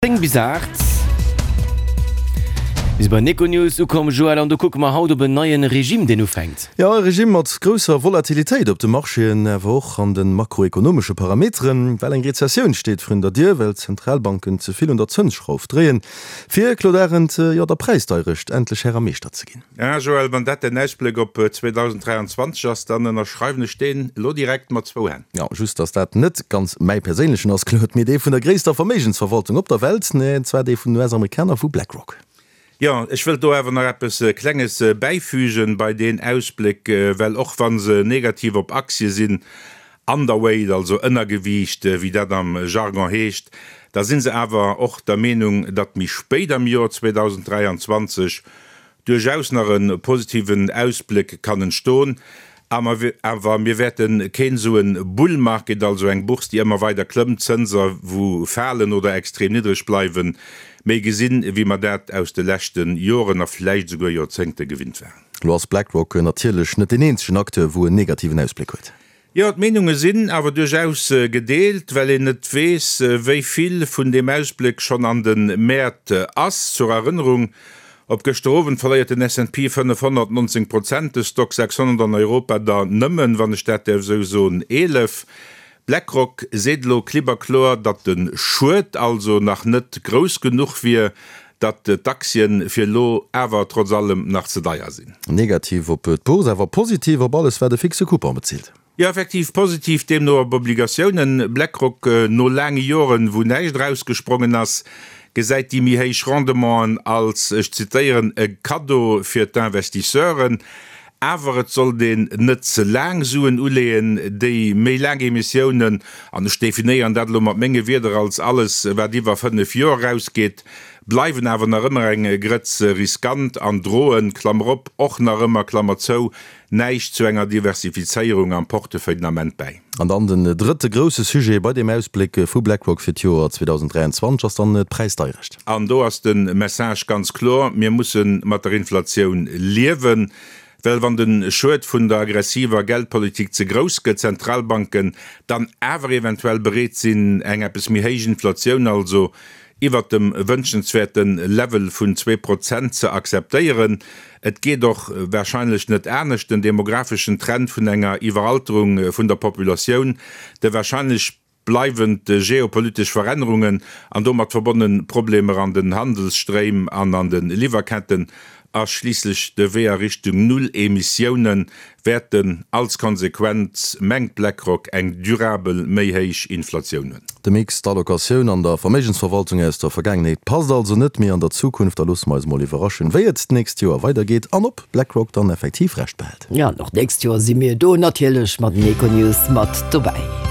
10 bis 8. Mir si bei Econews ukomm, Joël, an do kucke mer haut op en neie Regime, deen ufänkt. Jo, e Regime mat grousser Volatilitéit op de Marchéen, awer och an de makroekonomesche Parameteren, well eng Rezessioun steet vrun der Dier, well d'Zentralbanken ze vill un der Zënsschrauf dréien, fir, Claude Arend, jo, der Präisdeierecht endlech Här a Meeschter ze ginn. Ah Joël, wann dat däin Ausbléck op 2023 ass, dann ënnerschreiwen ech deen elo direkt mat zwou Hänn. Jo, just dass dat net ganz mäi perséinlechen ass, Claude, mee dee vun der gréisster Verméigensverwaltung op der Welt, an zwar dee vun den US-Amerikaner vu BlackRock. Jo, ech wëllt do awer nach eppes Klenges bäifügen bei deen Ausbléck, well och wa se negativ op Aktie sinn, underweight, also Ënnergewiicht, wéi dat am Jargon heescht, da si se awer och der Meenung, datt méi spéit am Joer 2023 duerchaus nach e positiven Ausbléck kann entston, awer mir wäerte keen esou e Bull Market, also eng Bourse déi ëmmer weider klëmmt, Zënser wou falen oder extrem niddreg bleiwen, méi gesinn, wéi mer dat aus de leschte Joren a vläicht esouguer Joerzéngte gewinnt waren. Elo ass BlackRock natierlech net deen eenzegen Acteur wou en negativen Ausbléck huet. Jo, d'Meenunge sinn awer duerchaus gedeelt, well een net weess, wéi vill vun deem Ausbléck schonn an de Mäert ass. Zur Erënnerung, Op gëschter Owend verléiert den S&P 500 19 Prozent, de Stoxx 600 an Europa der nëmmen, wann ech dat däerf esou soen, 11. BlackRock seet elo klipp a kloer, datt de Schued also nach net grouss genuch wier, datt d'Aktien fir elo awer trotz allem nach ze deier sinn. Negativ op d'Bourse, awer positiv op alles wat e fixe Coupon bezilt. Jo, effektiv positiv deemno op Obligatiounen. BlackRock, no laange Joren wou näischt erausgesprongen ass, gesäit déi méi héich Rendementen als, ech zitéieren, e Kaddo fir d'Investisseuren. Awer et sollt een net ze laang Suen uleeën. Déi méi laang Emissiounen, an ech definéieren dat elo mat menge Wierder als alles wat iwwer 5 Joer erausgeet, bleiwen awer nach ëmmer eng Grëtz riskant an droen, Klammer op, och nach ëmmer, Klammer zou, näischt zu enger Diversifizéierung am Portefeuille den Ament bäi. An dann den drëtte grousse Sujet bei deem Ausbléck vu BlackRock fir d'Joer 2023 ass dann d'Präisdeierecht. An do ass de Message ganz kloer, Mir musse mat der Inflatioun liewen, well wann de Schued vun der aggressiver Geldpolitik ze grouss gëtt, d'Zentralbanken dann awer eventuell bereet sinn, eng eppes méi héich Inflatioun, also iwwert dem wënschenswäerte Level vun 2% ze akzeptéieren. Et geet och warscheinlech net anescht, den demographeschen Trend vun enger Iwweralterung vun der Populatioun, de warscheinlech bleiwend geopolitesch Verännerungen an domat verbonne Problemer an den Handelsstréim an an de Liwwerketten a schliisslech de Wee a Richtung Null Emissioune wäerten als Konsequenz, mengt BlackRock, eng durabel méi héich Inflatioun hunn. De Mix d'Allocatioun an der Verméigensverwaltung aus der Vergaangenheet passt also net méi an der Zukunft. Da loosse mer eis mol iwwerraschen, wéi et d'nächst Joer weidergeet an ob BlackRock dann effektiv Recht behält. Jo, an och d'nächst Joer si mir do natierlech mat den Econews mat dobäi.